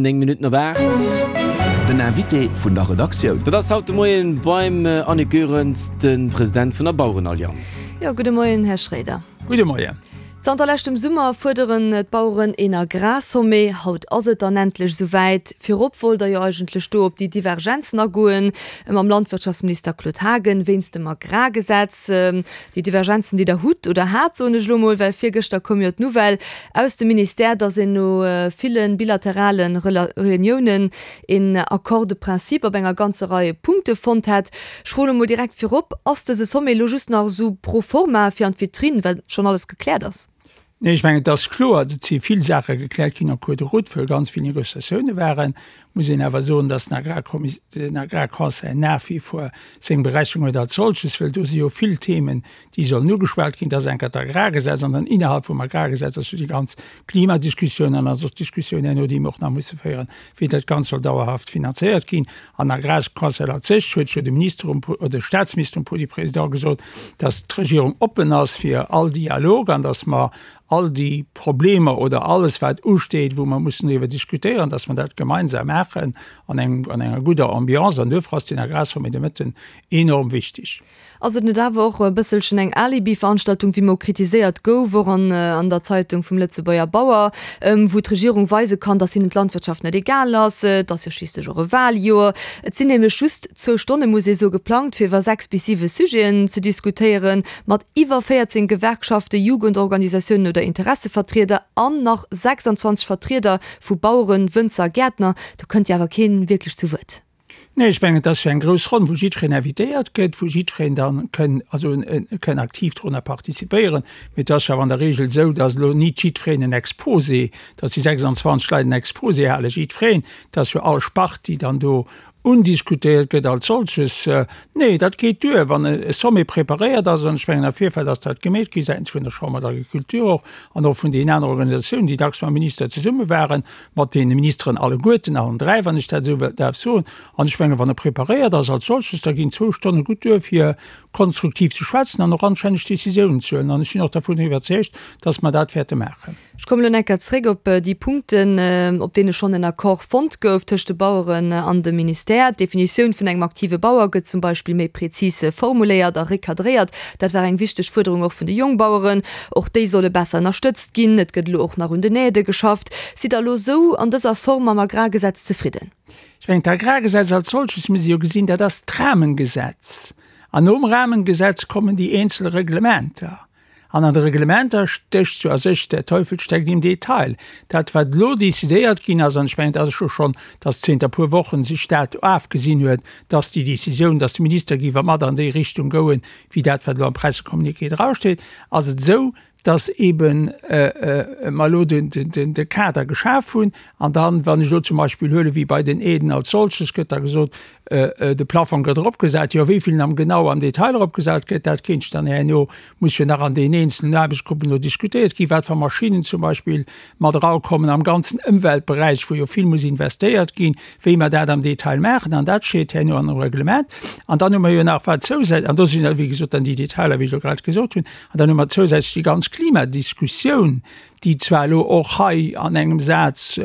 9 Minutten op 8. Den Invité vun der Redaktioun. Dat ass haut de Moien beim Annick Goerens, de President vun der Bauerenallianz. Jo, gudde Moien, Här Schroeder. Gudde Moien. Zanter leschtem Summer fuerderen d'Baueren een Agrarsommet. Haut ass et dann endlech esou wäit. Virop wollt der jo eigentlech do op déi Divergenzen agoen mam Landwirtschaftsminister Claude Haagen wéinst dem Agrargesetz. Déi Divergenzen, déi Der hutt oder hat, soen ech elo mol, well virgëschter koum jo d'Nouvelle aus dem Ministère, dass een no ville bilaterale Reuniounen een Accord de principe op enger ganzer Rei Punkte fonnt hätt. Ech froen elo mol direkt virop, Ass dëse Sommet elo just nach esou pro forma fir an d'Vitrinn, well schonn alles gekläert ass? Nee, ech mengen, et ass kloer, et si vill Saache gekläert ginn en cours de route, wou ganz vill Négociatioune waren. Muss een awer soen, dass den Agrarconseil nach wie vor seng Berechnung huet als solches, well do si jo vill Themen, déi sollen ugeschwat ginn. Dat ass enker d'Agrargesetz an dann innerhalb vum Agrargesetz ass jo déi ganz Klimadiskussioun an ass och d'Diskussioun herno, déi mer och nach musse féieren, wéi dat Ganzt soll dauerhaft finanzéiert ginn. An Agrarconseil als sech huet jo de Minister um, oder de Statsminister um Podium Président gesot, dass d'Regierung oppen ass fir all Dialog an dass mer all déi Problemer oder alles wat usteet, wou mer mussen driwwer diskutéieren, dass mer dat gemeinsam maachen an engem, an enger gudder Ambiance. An duerfir ass deen Agrarsommet de Mëtten enorm wichtig. Ass et net awer och e bësselchen eng Alibi-Veranstaltung, wéi mol kritiséiert gouf, och an an der Zeitung vum Lëtzebuerger Bauer, wou d'Regierung weise kann, datt hinnen d'Landwirtschaft net egal ass? Et ass jo schliisslech och e Wahljoer. Et sinn nämlech just zwou Stonne, muss ee soe, geplangt, fir iwwer 6 bis 7 Sujeten ze diskutéieren, mat iwwer 14 Gewerkschaften, Jugendorganisatiounen oder Interessevertrieder an nach 26 Vertrieder vu Baueren, Wënzer, Gäertner. Do kënnt jo awer kee wierklech zu Wuert. Nee, ech mengen, et ass jo eng grouss Ronn, wou jiddwereen invitéiert gëtt, wou jiddwereen da kënn, also kënn aktiv dorunner participéieren. Mee et ass jo awer an der Regel esou, datt elo nit jiddwereen en Exposé, datt déi 26 Leit en Exposé halen, jiddwereen, et ass jo all Spart, déi dann do undiskutéiert gëtt als solches. Nee, dat geet duer, wann e Sommet preparéiert ass, an ech mengen, am Virfeld ass dat gemeet gi säitens vun der Chambre d'Agriculture och an och vun deenen anere Organisatiounen, déi dacks mam Minister zesumme waren, mat deene Ministeren alleguerten, allen dräi, wann ech dat esou däerf soen. An ech mengen, wann e preparéiert ass als solches, da ginn zwou Stonne gutt duer, fir konstruktiv ze schwätzen an och anstänneg Décisiounen ze huelen. An ech sinn och dervun iwwerzeegt, dass mer dat wäerte maachen. Ech kommen elo nach eng Kéier zréck op déi Punkten, op deene schonn en Accord fonnt gouf tëscht de Baueren an dem Ministère. D'Definitioun vun engem aktive Bauer gëtt zum Beispill méi prezis formuléiert a recadréiert. Dat war eng wichteg Fuerderung och vun de Jongbaueren. Och déi solle besser ënnerstëtzt ginn. Et gëtt elo och nach un den Aidë geschafft. Sidd Der elo esou an dëser Form mam Agrargesetz zefridden? Ech mengen, d'Agrargesetz als solches muss ee jo gesinn, dat ass d'Rahmengesetz. An nom Rahmengesetz kommen déi eenzel Reglementer. An an de Reglementer stécht jo a sech, der Teufel steckt im Detail. Dat, wat elo decidéiert ginn ass, an ech mengen, et ass jo schonn, dass zénter e puer Wochen sech dat afgesinn huet, dass déi Décisioun, dass de Minister géif mat an déi Richtung gouen, wéi dat, wat elo am Pressecommuniqué drasteet, ass et esou, dass eeben mer elo de Kader geschaf hunn. An dann, wann ech elo zum Beispill huelen, wéi bei den Aiden als solches, gëtt da gesot, de Plafong gëtt eropgesat. Jo, wéi vill en am genau am Detail eropgesat gëtt, dat kéint dann herno, muss jo nach an deenen eenzelen Aarbechtsgruppen elo diskutéiert ginn, wat fir Maschinnen zum Beispill mat erakommen am ganzen Ëmweltberäich, wou jo vill muss investéiert ginn. wéi mer dat am Detail maachen, an dat steet herno an dem Reglement. An dann hu mer jo nach wat zousätzlech, an do sinn da wéi gesot dann déi Detailer, wéi ech elo grad gesot hunn, an dann hu mer zousätzlech déi ganz Klimadiskussioun, déi zwar elo och hei an engem Saz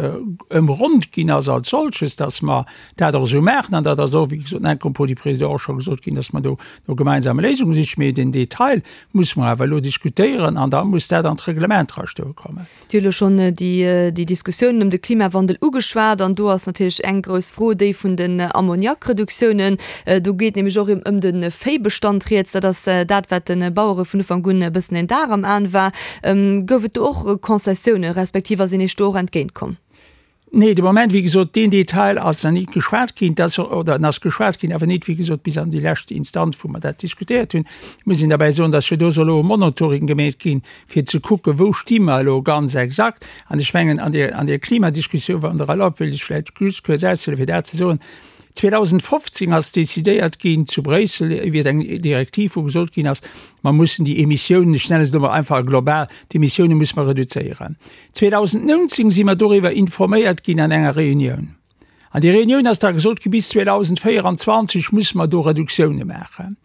ëmronnt ginn ass als solches, dass mer dat och esou maachen, an dat ass och, wéi gesot, en propos du Président och scho gesot ginn, dass mer do no gemeinsame Léisunge sichen, mee den Detail muss mer awer elo diskutéieren an da muss dat an d'Reglement drastoe kommen. Dir hutt elo schonn déi Diskussiounen ëm de Klimawandel ugeschwat an do ass natierlech eng grouss Fro déi vun den Ammoniakreduktiounen. Do geet nämlech och ëm de Véibestand rieds. Dat ass dat, wat de Bauere vun Ufank un e bëssen en Dar am Aen war. Gouf et do och Concessiounen, respektiv ass een Iech do och entgéintkomm? Nee, de Moment, wéi gesot, deen Detail ass nach nit geschwat ginn. Dat ass, oder en ass geschwat ginn, awer nit, wéi gesot, bis an déi lescht Instanz, wou mer dat diskutéiert hunn. Et muss een derbäi soen, dass jo do soll elo e Monitoring gemeet ginn, fir ze kucken, wou sti mer elo ganz exakt. An ech mengen, an där, an där Klimadiskussioun, wann Der erlaubt, wéilt ech vläicht just kuerz aushuelen, fir dat ze soen, 2015 ass decidéiert ginn zu Bréissel iwwert eng Direktiv, wou gesot ginn ass, mer mussen déi Emissiounen, ech nennen et elo mol einfach global, d'Emissiounen musse mer reduzéieren. 2019 si mer doriwwer informéiert ginn an enger Reunioun. An déi Reunioun ass da gesot gi, bis 2024 musse mer do Reduktioune maachen.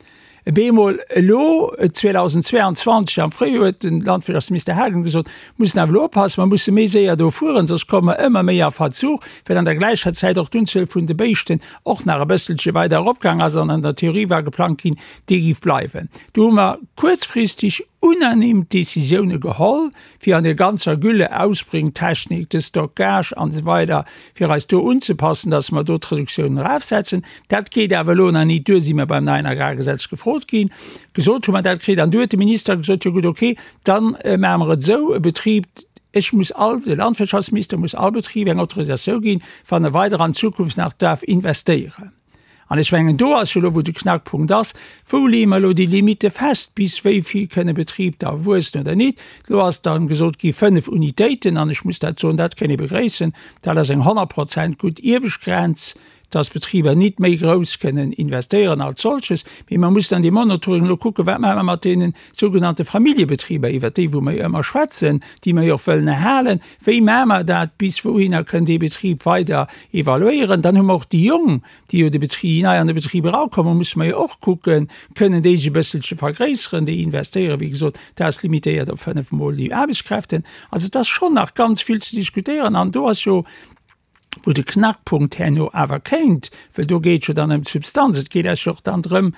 Bemol elo 2022 am Fréijoer huet de Landwirtschaftsminister Haagen gesot, mussen awer elo oppassen, mer musse méi séier do fueren, soss komme mer ëmmer méi a Verzug, well an der gläicher Zäit och d'Unzuel vun de Béischten och nach e bësselche weider eropgaang ass an an der Theorie war geplangt ginn, déi géif bleiwen. Do hu mer kuerzfristeg unanime Décisioune geholl, fir an der ganzer Gülle-Ausbringtechnik, de Stockage an esou weider, fir eis do unzepassen, dass mer do d'Reduktiounen erafsetzen. Dat geet awer elo nach nit duer, si mer beim neien Agrargesetz gefrot ginn. Gesot hu mer dat kritt an du huet de Minister gesot, jo gutt, okay, da maache mer et esou, e Betrib, ech muss all, de Landwirtschaftsminister muss all Betrib eng Autorisatioun ginn, wann e weider an Zukunft nach darf investéieren. An ech mengen, do ass jo elo, wou de Knackpunkt ass, Wou leeë mer elo déi Limitte fest, bis wéi vill kënn e Betrib da wuessen oder nit? Elo ass da gesot gi 5 Unitéiten, an ech muss dat soen, dat kënn ee begréissen, dat ass eng 100 Prozent gutt iewescht Grenz, dass Betriber nit méi grouss kënnen investéieren als solches. Mee mer mussen an deem Monitoring elo kucken, Wat maache mer mat deene sougenannte Familljebetriber, iwwert déi wou mer jo ëmmer schwätzen, déi mer jo och wëllen erhalen? Wéi maache mer dat? Bis wouhinner kënn dee Betrib weider evaluéieren? Dann hu mer och déi Jong, déi jo de Betrib, déi nei an de Betrib erakommen, musse mer jo och kucken, kënnen déi sech e bësselche vergréisseren? Déi investéieren, wéi gesot, dat ass limitéiert op 5 mol déi Aarbechtskräften. Also et ass schonn nach ganz vill ze diskutéieren an do ass jo, wou de Knackpunkt herno awer kéint, well do geet et jo dann ëm d'Substanz, et geet eis jo och dann drëm,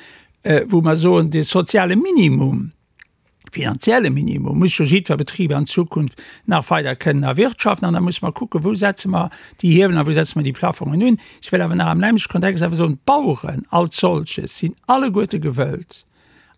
wou mer soen, de soziale Minimum, finanzielle Minimum muss jo jiddwer Betrib an Zukunft nach weider kënnen erwirtschaften. An da musse mer kucken, wou setze mer déi Hiewelen a wou setze mer déi Plafongen un. Ech wëll awer nach am nämlechte Kontext awer soen, d'Baueren als solches sinn alleguerte gewëllt,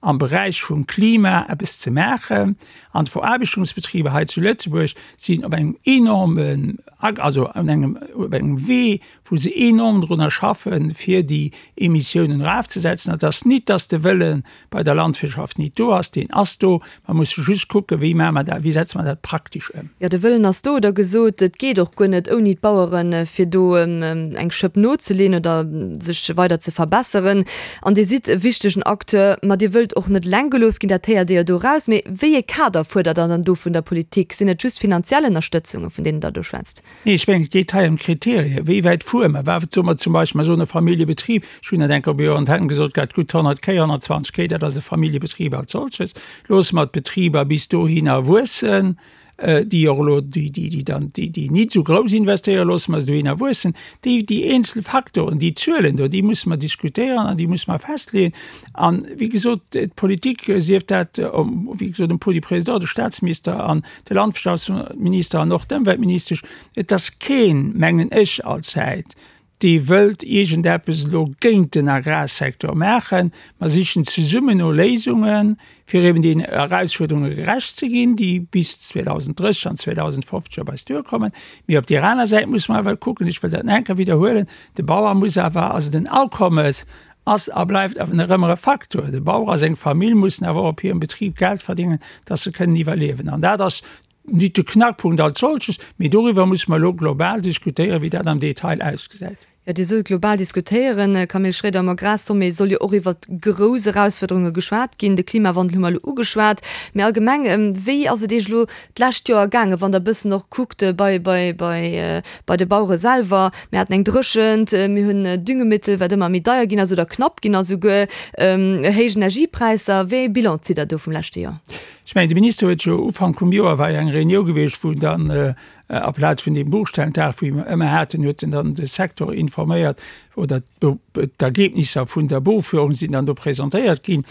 am Beräich vum Klima eppes ze maachen. An d'Veraarbechtungsbetriber hei zu Lëtzebuerg sinn op engem enormen, also an engem, op engem Wee, wou se enorm drunner schaffen, fir déi Emissiounen erafzesetzen. Et ass nit, dass de Wëlle bei der Landwirtschaft nit do ass, deen ass do. Mer musse just kucken, wéi maache mer dat, wéi setze mer dat praktesch ëm. Jo, de Wëllen ass do, der gesot. Et geet och guer net ouni d'Baueren, fir do eng Schëpp nozeleen oder sech weider ze verbesseren. An Dir sidd e wichtegen Acteur, ma Dir wëllt och net eleng gelooss ginn, dat héiert Dir jo do eraus. Mee wéi ee Kader fuerdert Der dann do vun der Politik? Sinn et just finanziell Ënnerstëtzungen, vun deenen Der do schwätzt? Nee, ech mengen, et geet hei ëm Kriterien. Wéi wäit fuere mer? Wat soe mer zum Beispill? Mer soen e Familljebetrib, ech hunn dat eng Kéier op Iwwer Antennen gesot gehat, gutt 100 Kéi, 120 Kéi, dat ass e Familljebetrib als solches. Loosse mer d'Betriber bis dohinner wuessen, déi och elo, déi, déi, déi dann, déi, déi nit esou grouss investéieren, loosse mer se dohinner wuessen. Déi, déi eenzel Faktoren, déi Zuelen do, déi musse mer diskutéieren an déi musse mer festleeën. An, wéi gesot, d'Politik, sief dat, wéi gesot, um Podium Président, de Statsminister an de Landwirtschaftsminister an och d'Ëmweltministesch, et ass keen, mengen ech allzäit, dee wëllt iergendeppes elo géint den Agrarsecteur maachen. Mer sichen zesummen no Léisungen, fir eben deenen Erausfuerderunge gerecht ze ginn, déi bis 2030 an 2050 op eis duerkommen. Mee op där aner Säit musse mer awer kucken, ech wëll dat nach eng Kéier widderhuelen, de Bauer muss awer, also den Akommes ass a bleift awer nach ëmmer e Faktor. De Bauer a seng Famill mussen awer och op hirem Betrib Geld verdéngen, dass se kënnen iwwerliewen. An dat ass nit de Knackpunkt als solches, mee doriwwer musse mer elo global diskutéieren, wéi dat am Detail ausgesäit. Jo, Dir sot global diskutéieren, Camille Schroeder. Am Agrarsommet soll jo och iwwert grouss Erausfuerderunge geschwat ginn. De Klimawandel hu mer elo ugeschwat. Mee allgemeng, wéi ass et Iech elo d'lescht Joer gaangen, wann Der e bëssen och kuckt bei, bei, bei, bei de Bauere selwer? Mir haten eng Dréchent, mir hunn Düngemittel, wat ëmmer méi deier ginn ass oder knapp ginn ass esouguer, héich Energiepräisser. Wéi ee Bilan zitt Der do vum leschte Joer? Ech mengen, de Minister huet jo Ufank vum Joer war jo eng Reunioun gewiescht, wou dann aplaz vun deem Buchstellentag, wou mer ëmmer haten, huet en dann de Secteur informéiert oder d'Ergebnisser vun der Buchführung sinn dann do presentéiert ginn.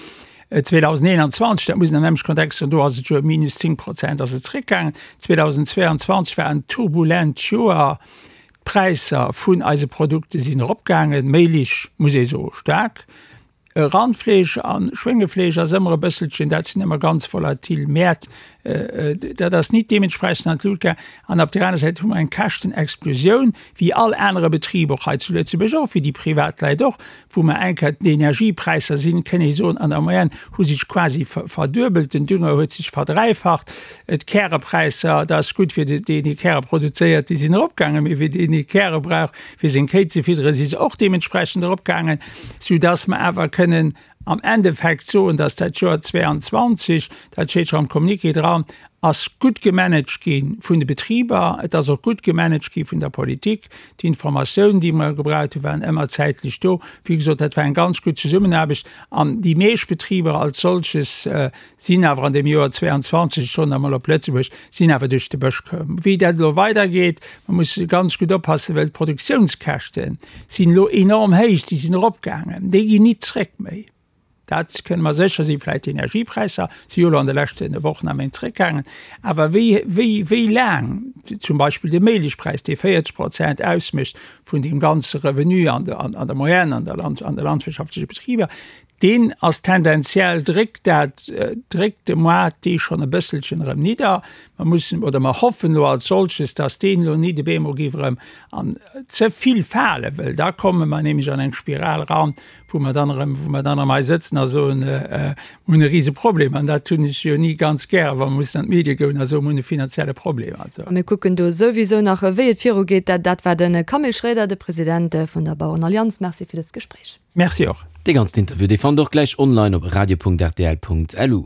2021, dat muss een am nämleche Kontext soen, do ass et jo ëm minus 10 Prozent ass et zréckgaangen. 2022 war en turbulent Joer. D'Präisser vun eise Produkte sinn eropgaangen, Méilich, muss ee soe staark. Randfleesch a Schwéngefleesch ass ëmmer e bësselchen, dat sinn ëmmer ganz volatil Mäert, dat ass nit deementsprechend an d'Lut gaangen. An op där aner Säit hu mer eng Käschtenexplosioun, wéi all anere Betrib och hei zu Lëtzebuerg och, wéi déi privat Leit och, wou mer eng Kéier d'Energiepräisser sinn, kënn ee soen, an der Moyenne hu sech quasi verduebelt, den Dünger huet sech verdräifacht. D'Kärepräisser, dat ass gutt fir deen, dee Käre produzéiert, déi sinn eropgaangen, mee fir deen, dee Käre brauch, fir seng Kéi ze fidderen, si se och deementsprechend eropgaangen, soudass mer awer kënnen am Endeffekt soen, dass dat Joer 22, dat steet scho am Communiqué dran. Ass gutt gemanagt gi vun de Betriber, et ass och gutt gemanagt gi vun der Politik. D'Informatiounen, déi mer gebraucht hunn, waren ëmmer zäitlech do. Wéi gesot, dat war eng ganz gutt Zesummenaarbecht an déi meescht Betriber als solches sinn awer an deem Joer 22, ech soen dat emol op Lëtzebuerg, sinn awer duerch de Bësch koum. Wéi dat elo weidergeet, mer musse ganz gutt oppassen, well d'Produktiounskäschte sinn elo enorm héich, déi sinn eropgaangen, déi ginn nit zréck méi. Dat kënne mer sécher sinn. Vläicht d'Energiepräisser si jo elo an de leschte Wochen a Méint zréckgaangen. Awer wéi, wéi, wéi laang zum Beispill de Mélichpräis, dee 40 Prozent ausmécht vun deem ganze Revenu an der, an der Moyenne an der Land, an de landwirtschaftleche Betriber, deen ass tendenziell, dréckt dat, dréckt de Moart dee schonn e bësselchen erëm nidder. Mer mussen oder mer hoffen elo als solches, dass deen elo nit op eemol géif erëm an ze vill falen, well da komme mer nämlech an eng Spiral eran, wou mer dann erëm, wou mer dann erëm hei sëtzen a soen, mir hunn e rise Problem. An dat hunn ech jo ni ganz gär, wa mer mussen an d'Medie goen a soen, mir hunn e finanzielle Problem. Also. A mir kucken do souwisou nach, wéi et virugeet. Dat war de Camille Schroeder, de President vun der Bauerenallianz. Merci fir dëst Gespréich. Merci och. Dee ganzen Interview, dee fannt der och gläich online op radio.rtl.lu.